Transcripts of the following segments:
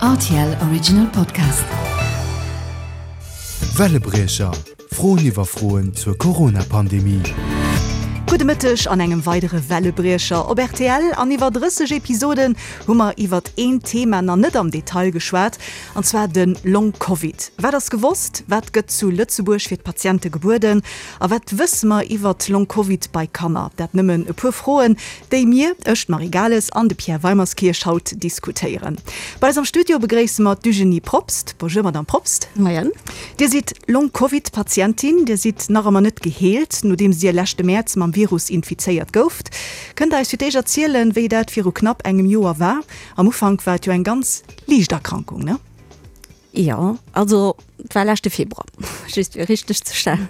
Rtl Original Podcast. Wellebriecher, Froen iwwer Froen zur Corona-Pandemie. Gudde Mëtteg an engem weidere Wellebriecher op rtl. An iwwer 30 Episoden hu mer iwwert een Thema nach net am Detail geschwat, an zwar de Long Covid. Wat ass gewosst? Wat gëtt zu Lëtzebuerg fir d'Patiente gebueden? A wat wësse mer iwwert Long Covid bei Kanner? Dat nëmmen e puer Froen, déi mir, ech, d'Marie Gales an de Pierre Weimerskirch, haut diskutéieren. Bei eis am Studio begréisse mer d'Eugénie Probst. Bonjour Madame Probst. Moien. Dir sidd Long Covid Patientin. Dir sidd nach ëmmer net geheelt, nodeems Dir leschte Mäerz mam Virus infizéiert gouft. Kënnt Der eis fir d'éischt erzielen, wéi dat viru knapp engem Joer war? Am Ufank war et jo eng ganz liicht Erkrankung, ne? Jo, also et war leschte Februar, just fir richteg ze stellen.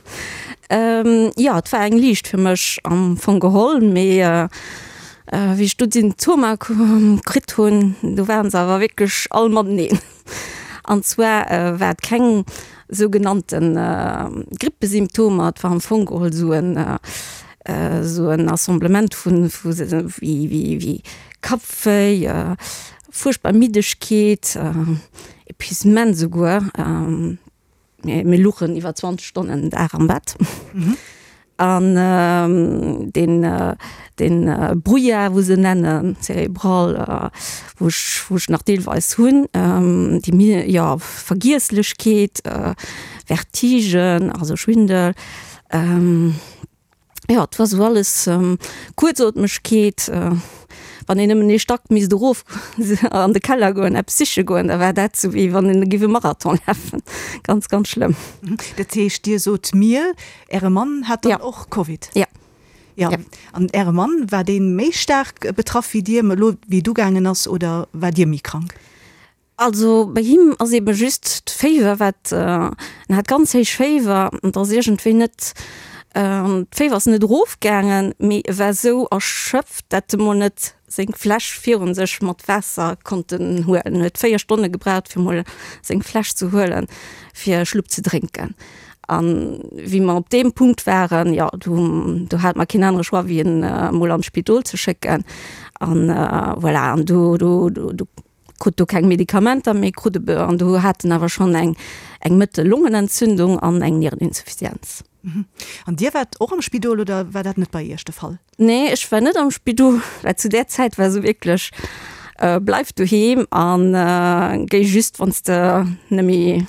Jo, et war eng liicht fir mech am Fong geholl, mee wéi ech do d'Symptomer kritt hunn, do waren se awer wierklech all mateneen. An zwar war et keng sougenannte Grippesymptomer, et war am Fong geholl esou en esou en Assemblement vu wéi Kappwéi, Fuerchtbar Middegkeet, Epuisement souguer. Mir luchen iwwer 20 Stonnen den Dag am Bett. An deen, deen Brouillard, wou se nennen, cérébral, wou ech, wou ech nach deelweis hunn, déi, jo, Vergiesslechkeet, Vertigen, also Schwindel. Jo, et war sou alles, Kuerzootmegkeet, wann een nëmmen ee Stack misst erof an de Keller goen, eppes siche goen, da war dat sou wéi wann een géif e Marathon lafen. Ganz, ganz schlëmm. Dat heescht, Dir sot mir, Äre Mann hat dann och Covid? Ja. Jo. An Äre Mann, war dee méi staark betraff wéi Dir, elo wéi et ugaangen ass, oder war Dir méi krank? Also bei him ass eben just d'Féiwer wat, en hat ganz héich Féiwer an et ass iergendwéi net, d'Féiwer ass net erof gaangen, mee e war esou erschöpft, dat e mol net seng Fläsch virun sech mat Waasser konnten huelen. En huet 4 Stonne gebraucht fir mol seng Fläsch ze huelen fir e Schlupp ze drénken. An wéi mer op deem Punkt waren, jo do do hate mer keen anere Choix wéi en mol an d'Spidol ze schécken an voilà an do do do krut do keng Medikamenter méi, krut e an do hat en awer schonn eng eng mëttel Longenentzündung an eng Niereninsuffizienz. An Dir waart och am Spidol oder war dat net bei Iech de Fall? Nee, ech war net am Spidol, well zu där Zäit war esou wierklech, bleif doheem an géi just wann s de net méi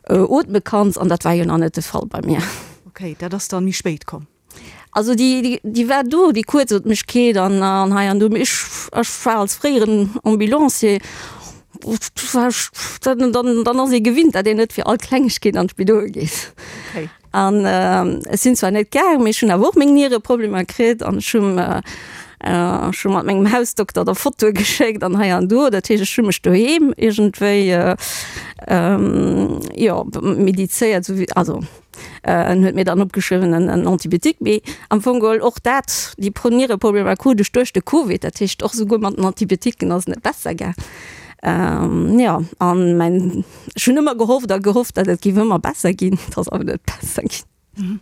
ootme kanns an dat war jo nach net de Fall bei mir. Okay, dat ass dann méi spéit komm. Also déi, déi war do, déi Kuerzootmegkeet an an hei an do. Mee ech, ech war als fréieren Ambulancier, war ech, dann, dann, dann ass ee gewinnt, datt een net fir all Klengegkeet an d'Spidol geet. Okay. An ech sinn zwar net gaang, mee ech hunn awer och meng Niereproblemer kritt an ech hunn, ech hu mat mengem Hausdokter da Fotoe geschéckt an hei an do. Dat heescht, ech hu mech doheem iergendwéi, jo, medizéiert, esou wéi, also. En huet mir dann opgeschriwwen en en Antibiotique, mee am Fong geholl och dat, déi Pro Niereproblemer krut ech duerch de Covid, dat heescht och souguer mat den Antibiotiquen ass et net besser gaang. Jo, an mäin, ech hunn ëmmer gehofft a gehofft, datt et géif ëmmer besser ginn, et ass awer net besser ginn.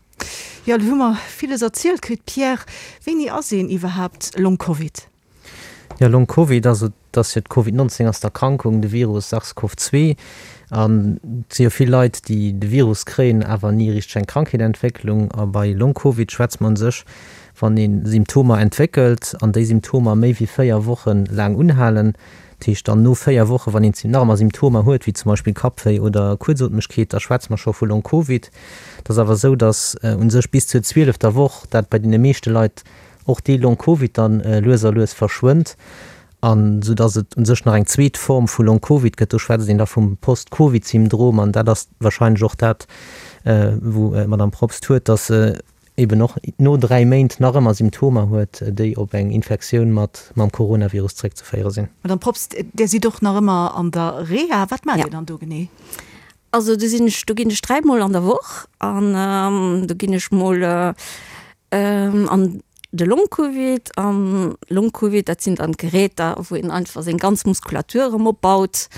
Jo, elo hu mer villes erzielt kritt. Pierre, wéini ass een iwwerhaapt Long-Covid? Jo, Long Covid, also et ass jo d'Covid 19 ass d'Erkrankung, de Virus SARS-CoV 2. An et si jo vill Leit, déi de Virus kréien, awer ni richteg eng Krankheet entwécklung. A bei Long Covid schwätzt mer un sech, wann ee Symptomer entwéckelt an déi Symptomer méi wéi 4 Woche laang unhalen. Dat heescht dann no 4 Woche, wann een nach ëmmer Symptomer huet, wéi zum Beispill Kappwéi oder Kuerzootmegkeet, da schwätze mer scho vu Long Covid. Et ass awer esou, datt un sech bis zur zwielefter Woch dat bei deene meeschte Leit och dee Long Covid dann lues a lues verschwënnt, an sou dass et u sech nach eng zweet Form vu Long Covid gëtt. Do schwätzt een da vum Post-Covid-Syndrom, an dat ass wahrscheinlech och dat, wou d'Madame Probst huet, dass se eben och no 3 Méint nach ëmmer Symptomer huet, déi op eng Infektioun mat mam Coronavirus zréckzeféiere sinn. Madame Probst, Där sidd och nach ëmmer an der Reha. Wat maacht Dir dann do genee? Also do sinn ech, do ginn ech dräimol an der Woch an do ginn ech mol an de Long-Covid. An Long-Covid, dat sinn dann d'Geräter, wou een einfach seng ganz Muskulatur erëm opbaut,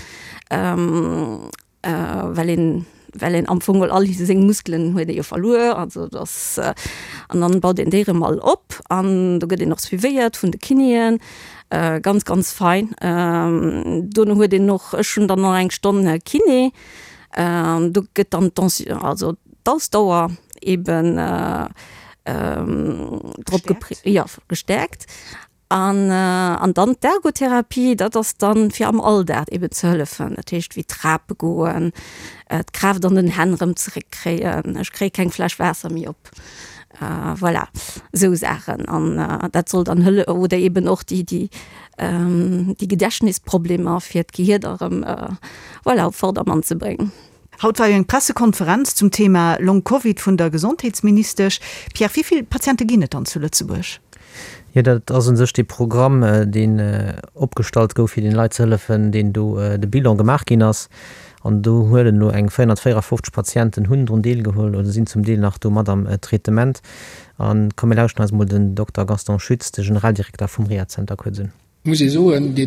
well een. well een am Fong all seng Muskelen huet ee jo verluer, also dass an dann baut een déi erëm all op an do gëtt een och suivéiert vun de Kinéen, ganz ganz fein. Dono huet een och, ech hunn dann nach eng Stonn Kiné, do gëtt dann d'Tension, also d'Ausdauer eben drop gestärkt, jo gestärkt. An an dann d'Ergotherapie, dat ass dann fir am Alldag eben ze hëllefen, dat heescht wéi Trape goen, d'Kraaft an den Hänn erëm zeréckkréien, ech kréie keng Fläsch Waasser méi op, voilà, esou Saachen. An dat soll dann hëlle oder eben och déi déi déi Gedächtnisproblemer fir d'Gehier da erëm, voilà, op Vordermann ze bréngen. Haut war jo eng Pressekonferenz zum Thema Long Covid vun der Gesondheetsministesch. Pierre, wéi vill Patiente ginn et dann zu Lëtzebuerg? Jo, dat ass u sech dee Programm, deen opgestallt gouf, fir den Leit ze hëllefen, deen do de Bilan gemaach ginn ass. An do huelen elo eng 454 Patienten hunn drun deelgeholl oder sinn zum Deel nach do mat am Traitement. A komm mir lauschten eis emol den Dokter Gaston Schütz, de Generaldirekter vum Rehazenter kuerz un. Muss ee soen, dee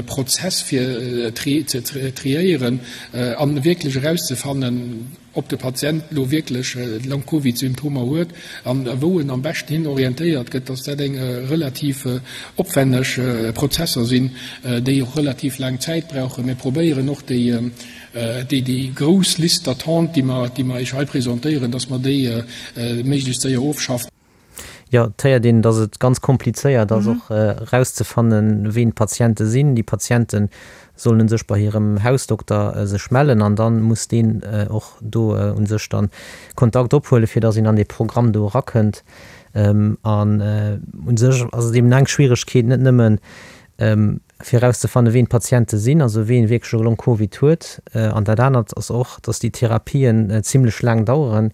Prozess fir ze triéieren a wierklech erauszefannen, ob de Patient elo wierklech Long-Covid-Symptomer huet an wou en am beschten hin orientéiert gëtt, dass dat eng relativ opwenneg Prozesser sinn, déi och relativ laang Zäit brauchen. Mir probéieren och déi grouss Liste d'attente, déi mer Iech hei presentéieren, dass mer déi méiglechst séier ofschaffen. Jo, et héiert een, dass et ganz komplizéiert ass och erauszefannen, ween d'Patiente sinn. Déi Patiente sollen u sech bei hirem Hausdokter sech mellen an dann muss deen och do u sech dann Kontakt ophuelen, fir dass een an dee Programm do erakënnt. An u sech ass et eben eng Schwieregkeet, net nëmmen fir erauszefannen, ween d'Patiente sinn, also ween wierklech e Long-Covid huet. An dat anert ass och, dass déi Therapien zimlech laang daueren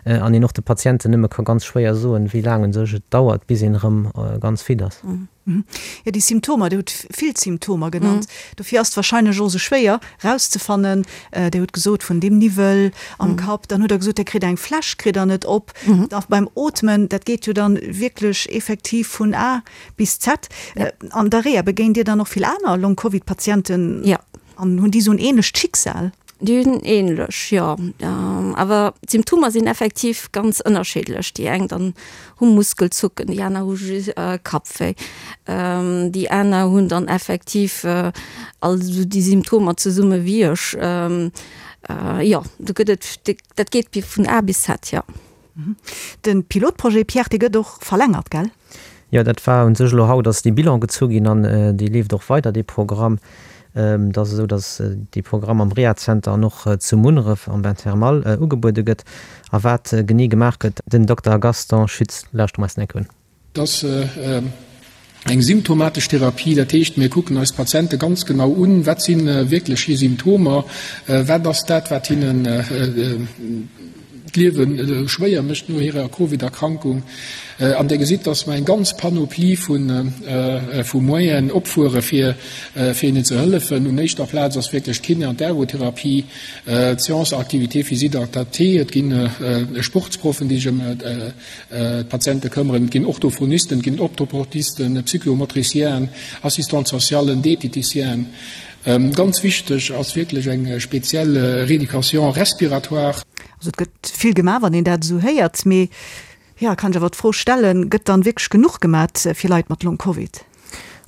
an een och de Patienten nëmme ka ganz schwéier soen, wéi laang u sech et dauert, bis een erëm ganz fit ass. Jo, déi Symptomer, Dir hutt vill Symptomer genannt, dofir ass et wahrscheinlech och esou schwéier erauszefannen. Dir hutt gesot, vun deem Niwwel am Kapp, dann hutt Der gesot, Dir kritt eng Fläsch, kritt Der net op, da beim Ootmen, dat geet jo dann wierklech effektiv vun A Bis Z. An der Reha begéint Dir dann och vill aner Long-Covid-Patienten? Jo. An hunn déi esou en ähnlecht Schicksal? Déi hunn ähnlech, jo. Awer d'Symptomer sinn effektiv ganz ënnerschiddlech. Déi eng dann hu Muskelzucken, déi aner hu just Kappwéi, déi aner hunn dann effektiv all esou déi Symptomer zesumme wéi ech. Jo, do gëtt et, dat geet vun A bis Z, jo. De Pilotprojet, Pierre, dee gëtt och verlängert, gell? Jo, dat war u sech elo haut ass dee Bilan gezu ginn an dee leeft och weider, dee Programm. Et ass esou, datt dee Programm am Rehazenter an och zu Munneref am Bain thermal ugebuede gëtt. A wat genee gemaach gëtt, den Dokter Gaston Schütz lauschtere mer eis eng Kéier un. Et ass eng symptomatesch Therapie, dat heescht, mir kucken eis d'Patiente ganz genau un, wat si wierklech hir Symptomer, wat ass dat, wat hinnen d'Liewe schwéier mécht no hirer Covid-Erkrankung. An Dir gesitt, dass mer eng ganz Panoplie vu Moyenen opfuere fir hinnen ze hëllefen. Un éischter Plaz ass wierklech d'Kiné an d'Ergotherapie, d'Séance activité physique adaptée, et gi Sportsproffen, déi sech ëm D'Patiente këmmeren. Et ginn Orthophonisten, et ginn Optoportisten, Psychomotricienen, Assistante socialen, Dieteticienen. Ganz wichteg ass wierklech eng speziell Rééducation respiratoire. Also et gëtt vill gemaach, wann een dat esou héiert. Mee jo, kann ech awer d'Fro stellen, gëtt dann wierklech genuch gemat fir Leit mat Long-Covid?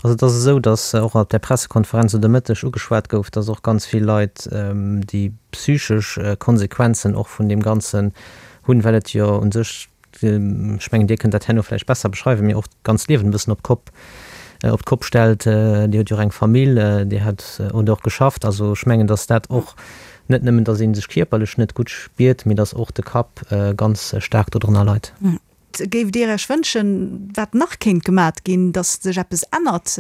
Also et ass esou, datt och op där Pressekonferenz elo de Mëtteg ugeschwat gouf, datt och ganz vill Leit déi psychesch Konsequenzen och vun deem Ganzen hunn, well et jo u sech, ech mengen Dir kënnt dat herno vläicht besser beschreiwen, mee och d'ganzt Liewen e bëssen op d'Kopp, op d'Kopp stellt. Dir hutt jo och eng Famill, Dir hat hutt och geschafft. Also ech mengen, datt dat och net nëmmen, datt ee sech kierperlech net gutt spiert, mee datt och de Kapp ganz staark dodrënner leit. Géift Dir Iech wënschen, wat nach kéint gemat ginn, datt sech eppes ännert,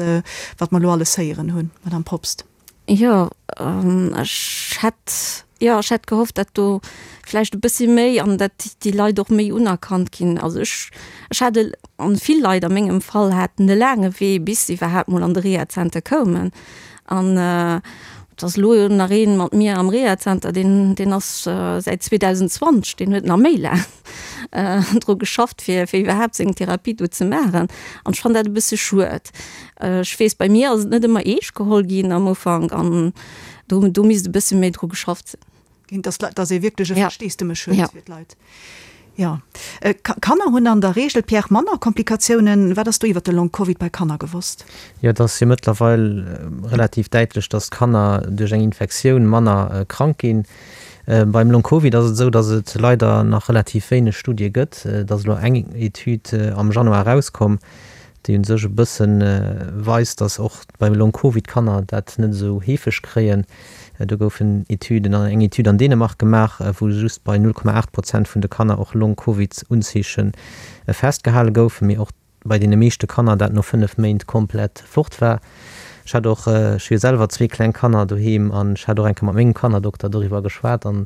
wat mer elo alles héieren hunn, Madame Probst? Jo, ech hätt, jo, ech hätt gehofft, datt do vläicht e bëssi méi an datt déi Leit och méi unerkannt ginn. Also ech, ech hat e, an vill Leit a mengem Fall haten e laange Wee, bis se iwwerhaapt mol an de Rehazenter koumen. An et ass elo nach een mat mir am Rehazenter, deen, deen ass säit 2020, deen huet nach méi laang. dru geschafft fir fir iwwerhaapt seng Therapie do ze maachen an ech fannen dat e bësse schued. Ech weess bei mir ass et net ëmmer eescht geholl ginn am Ufank an do do misst e bësse méi dru geschafft sinn. Ginn, dass dass ee wierklech e Versteesdemech huet fir d'Leit. Jo. Kanner hunn an der Reegel, Pierre, manner Komplikatiounen. Wat ass do iwwer de Long Covid bei Kanner gewosst? Jo, et ass jo mëttlerweil relativ däitlech, dass d'Kanner duerch eng Infektioun manner krank ginn. Beim Long Covid ass et esou, dass et leider nach relativ wéineg Studie gëtt. Et ass elo eng Etüd am Januar erauskomm, déi u sech e bësse weist, dass och beim Long Covid Kanner dat net esou heefeg kréien. Do goufen Etüden, eng Etüd an Dänemark gemaach, wou just bei 0,8 Prozent vun de Kanner och Long Covid Unzeeche festgehale goufen, mee och bei deene meeschte Kanner dat no 5 Méint komplett fort war. Ech hat och, ech hu jo selwer zwee kleng Kanner doheem an ech hat och eng Kéier mat mengem Kannerdokter doriwwer geschwat an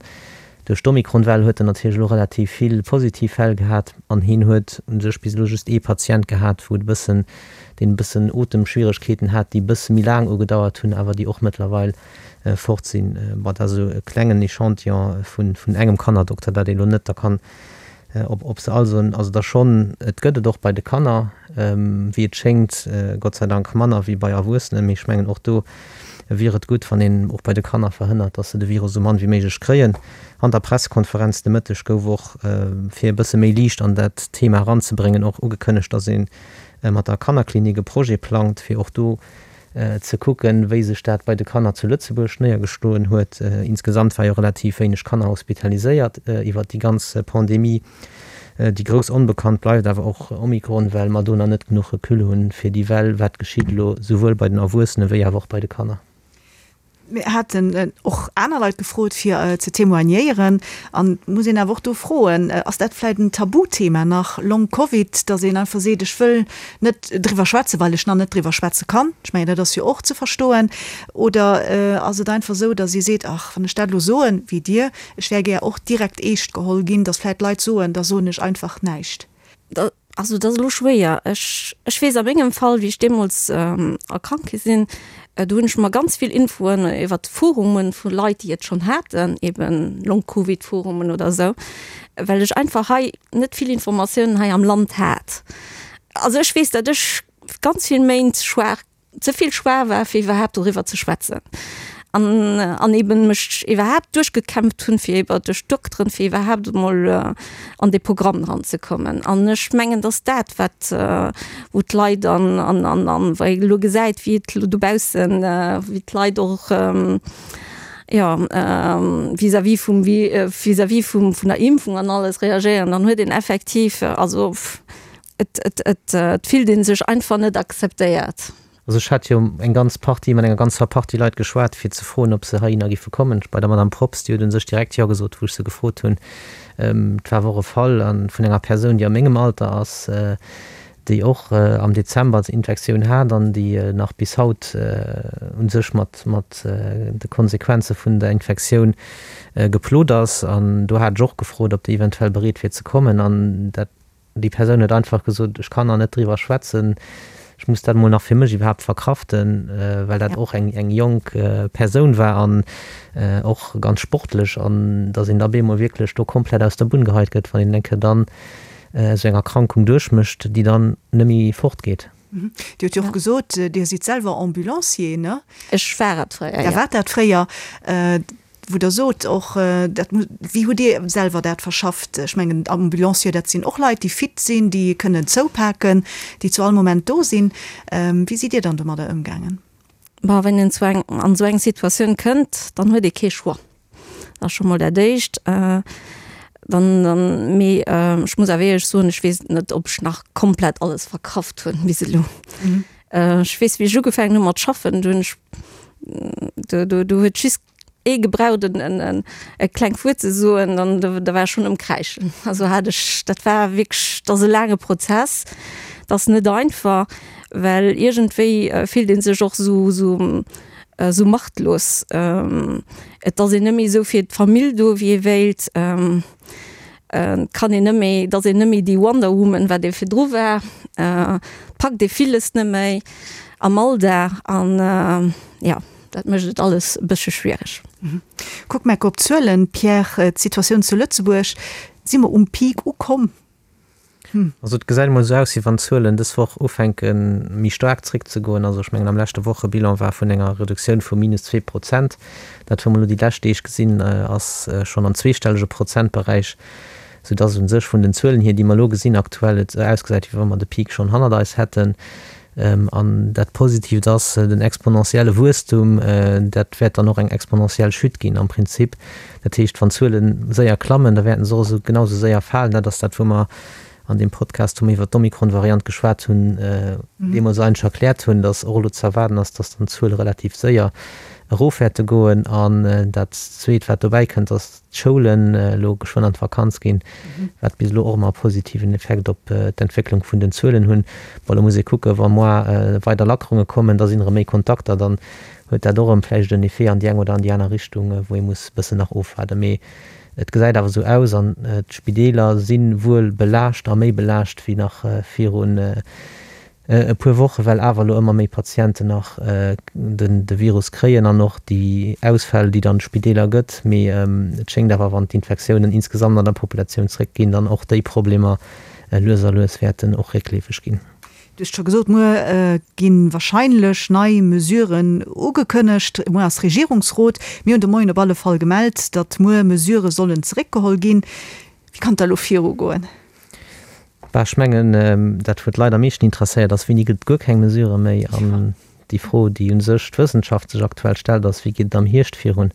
Duerch d'Omikron-Well huet en natierlech elo relativ vill positiv Fäll gehat an hien huet u sech bis elo just ee Patient gehat, wou et e bëssen, deen e bëssen Otemschwieregkeeten hat, déi e bësse méi laang ugedauert hunn, awer déi och mëttlerweil fort sinn. Bon, dat ass esou e klengen Echantillon vun engem Kannerdokter, dat ee elo net da kann Ob, ob se all soen, also da schonn, et gëtt et och bei de Kanner, wéi et schéngt, Gott sei Dank manner wéi bei Erwuessenen, mee ech mengen och do wier et gutt, wann een och bei de Kanner verhënnert, datt se de Virus esou mann wéi méiglech kréien. An der Pressekonferenz de Mëtteg gouf och, fir e bësse méi Liicht an dat Thema eranzebréngen, och ugekënnegt, datt ee mat der Kannerklinik e Projet plangt, fir och do ze kucken, wéi sech dat bei de Kanner zu Lëtzebuerg néiergeschloen huet. Insgesamt war jo relativ wéineg Kanner hospitaliséiert iwwert déi ganz Pandemie. Déi grouss Onbekannt bleift awer och Omikron, well mer do nach net genuch Recul hunn, fir déi Well, wat geschitt elo souwuel bei den Erwuessene wéi awer och bei de Kanner. Mir haten och aner Leit gefrot, fir ze témoignéieren. An et muss een awer och do froen, Ass dat vläicht en Tabuthema nach, Long Covid, datt een einfach seet, ech wëll net driwwer schwätzen, well ech nach net driwwer schwätze kann? Ech mengen, dat ass jo och ze verstoen. Oder ass et einfach esou, datt ee seet, ach, wann ech dat elo soen, wéi Dir, ech wär gär och direkt eescht geholl ginn, datt vläicht Leit soen, da soen ech einfach näischt? Also dat ass elo schwéier. Ech, ech weess a mengem Fall, wéi ech deemools erkrankt gi sinn, do hunn ech mer ganz vill Infoen iwwert Forumen vu Leit, déi et schonn haten, eben Long-Covid-Forumen oder esou, well ech einfach hei net vill Informatiounen hei am Land hat. Also ech weess, datt ech ganz vill Méint schwaach ze vill schwaach war fir iwwerhaapt doriwwer ze schwätzen an an eben mech iwwerhaapt duerchgekämpft hunn fir iwwer duerch d'Dokteren fir iwwerhaapt emol an dee Programm dran ze kommen an ech mengen dass dat wat wou d'Leit an an an an wei ee elo gesäit wéi et elo dobaussen wéi d'Leit och jo vis-à-vis vum vis-à-vis vum vun der Impfung an alles reagéieren dann huet een effektiv also Et, et, et, et fillt ee sech einfach net akzeptéiert. Also ech hat jo eng ganz Partie, mat enger ganzer Partie Leit geschwat, fir ze froen, ob se heihinner giffe kommen. Bei der Madame Probst, déi huet u sech direkt Jo gesot, wou ech se gefrot hunn. Et war awer och e Fall vun enger Persoun, déi a mengem Alter ass, déi och am Dezember d'Infektioun hat an déi nach bis haut u sech mat, mat de Konsequenze vun der Infektioun geplot ass. An do hat ech och gefrot, ob déi eventuell bereet wier ze kommen. An dat Déi Persoun huet einfach gesot, ech kann nach net driwwer schwätzen, ech muss dat emol nach fir mech iwwerhaapt verkraften, well dat och eng eng jonk Persoun war an och ganz sportlech an datt een da bemol wierklech do komplett aus der Bunn geheit gëtt, wann een eng Kéier dann esou eng Erkrankung duerchmécht, déi dann net méi fortgeet. Dir hutt jo och gesot, Dir sidd selwer Ambulancier, ne? Ech war et fréier, jo. Der waart dat fréier. Wou Der sot och, dat muss, wéi hutt Dir selwer dat verschafft? Ech mengen, Ambulancier, dat sinn och Leit, déi fit sinn, déi kënnen zoupaken, déi zu all Moment do sinn. Wéi sidd Dir dann domadder ëmgaangen? Bon, wann een zu eng, an esou eng Situatioun kënnt, dann huet ee kee Choix. Dat ass scho mol dat Éischt. Dann, dann, mee ech muss awer éierlech soen, ech weess net, ob ech nach komplett alles verkraft hunn bis elo. Ech weess, wéi ech ugefaangen hu mat schaffen, do hunn ech, do, do, do huet just ee gebraucht en, en, en e klengt Wuert ze soen, dann do, da war ech schonn um Kräischen. Also hat ech, dat war wierklech, dat ass e laange Prozess, dat ass net einfach, well iergendwéi fillt ee sech och esou, esou, esou machtlos. Et ass een net méi esou fir d'Famill do, wéi ee wéilt. Et kann een net méi, et ass een net méi déi Wonder Woman, wat ee virdru war. Et packt ee villes net méi am Alldag an jo, dat mécht et alles e bëssche schwiereg. Kuck mer op d'Zuelen, Pierre, d'Situatioun zu Lëtzebuerg, si mer um Peak ukomm? Also et gesäit emol esou aus, wéi wann d'Zuelen dës Woch ufänke méi staark zréckzegoen. Also ech mengen am leschte Wochebilan war vun enger Reduktioun vu minus 2 Prozent. Dat wou mer elo déi lescht Deeg gesinn, ass schonn am zweestellege Prozentberäich, soudass u sech vun den Zuelen hier, déi mer elo gesinn aktuell, et esou ausgesäit, wéi wa mer de Peak schonn hannert eis hätten. An dat Positiivt ass, den exponentielle Wuesstum, dat wäert dann och eng exponentiell Chute ginn am Prinzip. Dat heescht, wann d'Zuele séier klammen, da wäerten se och esou genau esou séier falen. Dat ass dat, wou mer an deem Podcast, wou mer iwwert d'Omikron-Variant geschwat hunn, deemools eigentlech erkläert hunn, datt och elo ze erwaarden ass, datt dann d'Zuele relativ séier erof wäerte goen. An dat Zweet, wat dobäi kënnt, ass, d'Schoulen elo geschwënn an d'Vakanz ginn, wat bis elo och ëmmer e positiven Effekt op d'Entwécklung vun den Zuelen hunn. Bon, elo muss ee kucken, wa moar weider Lackerunge kommen, da sinn erëm méi Kontakter, dann huet dat och erëm vläicht en Effet an déi eng oder an déi aner Richtung, wou ee muss e bëssen nach ofwaarden. Mee et gesäit awer esou aus an d'Spideeler si wuel belaascht a méi belaascht wéi nach virun e puer Wochen, well awer elo ëmmer méi Patienten nach de Virus kréien an och déi Ausfäll, déi dann d'Spideeler gëtt. Mee et schéngt awer, wann d'Infektiounen insgesamt an der Populatioun zréckginn, dann och déi Problemer lues a lues wäerten och réckleefeg ginn. Du hues scho gesot, muer gi wahrscheinlech nei Mesuren ugekënnegt. Muer ass Regierungsrot. Mir hunn de Moien op alle Fall gemellt, datt muer Mesurë sollen zeréckgeholl ginn. Wéi kann et da elo virugoen? Bah, ech mengen, dat wou d'Leit am meeschten interesséiert ass, Wéini gëtt et guer keng Mesurë méi? An déi Fro, déi u sech d'Wëssenschaft sech aktuell stellt, ass, Wéi geet et am Hierscht virun?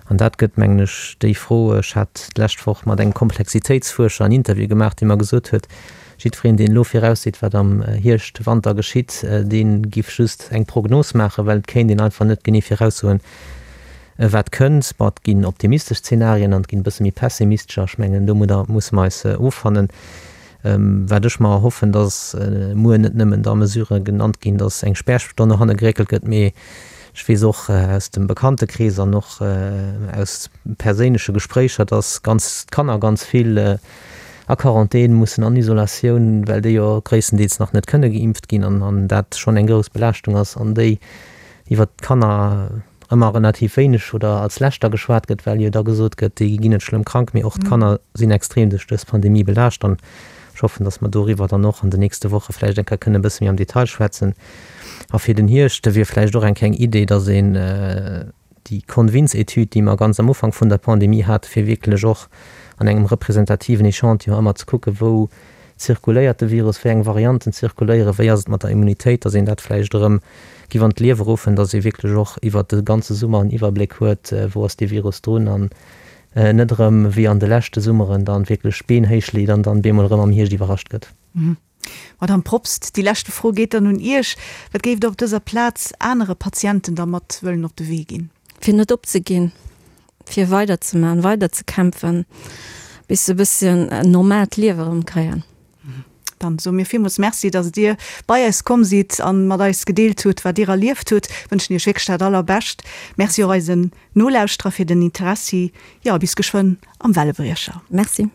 An dat gëtt, mengen ech, déi Fro. Ech hat d'lescht Woch mat engem Komplexitéitsfuerscher en Interview gemaach, dee mer gesot huet, jiddwereen, deen elo virausseet, wat am Hierscht, Wanter geschitt, dee giff just eng Prognos maachen, well et kéint een einfach net genee viraussoen, Wat kënnt? Bon, et ginn optimistesch Zenarien an et ginn e bësse méi pessimistescher. Ech mengen, domadder musse mer eis offannen. Wat ech mer erhoffen, dass muer net nëmmen da Mesurë genannt ginn, dass eng Spärstonn no hanne geréckelt gëtt, mee ech weess och aus dem Bekanntekrees an och aus perséinleche Gespréicher, dass ganz d'Kanner ganz vill a Quarantän mussen, an Isolatioun, well déi jo gréisstendeels nach net kënne geimpft ginn an dat schonn eng grouss Belaaschtung ass an déi iwwert d'Kanner ëmmer relativ wéineg oder als leschter geschwat gëtt, well jo da gesot gëtt, déi ginn net schlëmm krank, mee och d'Kanner sinn extrem duerch dës Pandemie belaascht an ech hoffen, datt mer doriwwer dann och an den nächste Woche vläicht eng Kéier kënnen e bësse méi am Detail schwätzen. A fir den Hierscht wier vläicht och eng kleng Idee, datt een déi Convins-Etüd, déi mer ganz am Ufank vun der Pandemie haten, fir wierklech och an engem representativen Echantillon ëmmer ze kucken, wou zirkuléiert de Virus, wéi eng Varianten zirkuléieren, wéi ass et mat der Immunitéit, datt een dat vläicht erëm giff an d'Liewe ruffen, datt ee wierklech och iwwert de ganze Summer en Iwwerbléck huet, wou ass dee Virus drun an net erëm wéi an de leschte Summeren dann wierklech d'Been héich leet an dann bemol erëm am Hierscht iwwerrascht gëtt. Madame Probst, déi leschte Fro geet dann un Iech. Wat géift Der op dëser Plaz anere Patienten da mat wëllen op de Wee ginn? Fir net opzeginn, fir weiderzemaachen, weiderzekämpfen, bis se e bësschen en normaalt Liewe erëm kréien. Dann soe mir villmools Merci, dass Dir bei eis komm sidd an mat eis gedeelt hutt, wat Dir erlieft hutt. Wënschen Iech wierklech dat Allerbescht. Merci och eisen Nolauschterer fir den Interessi. Jo, a bis geschwënn am Wellebriecher. Merci.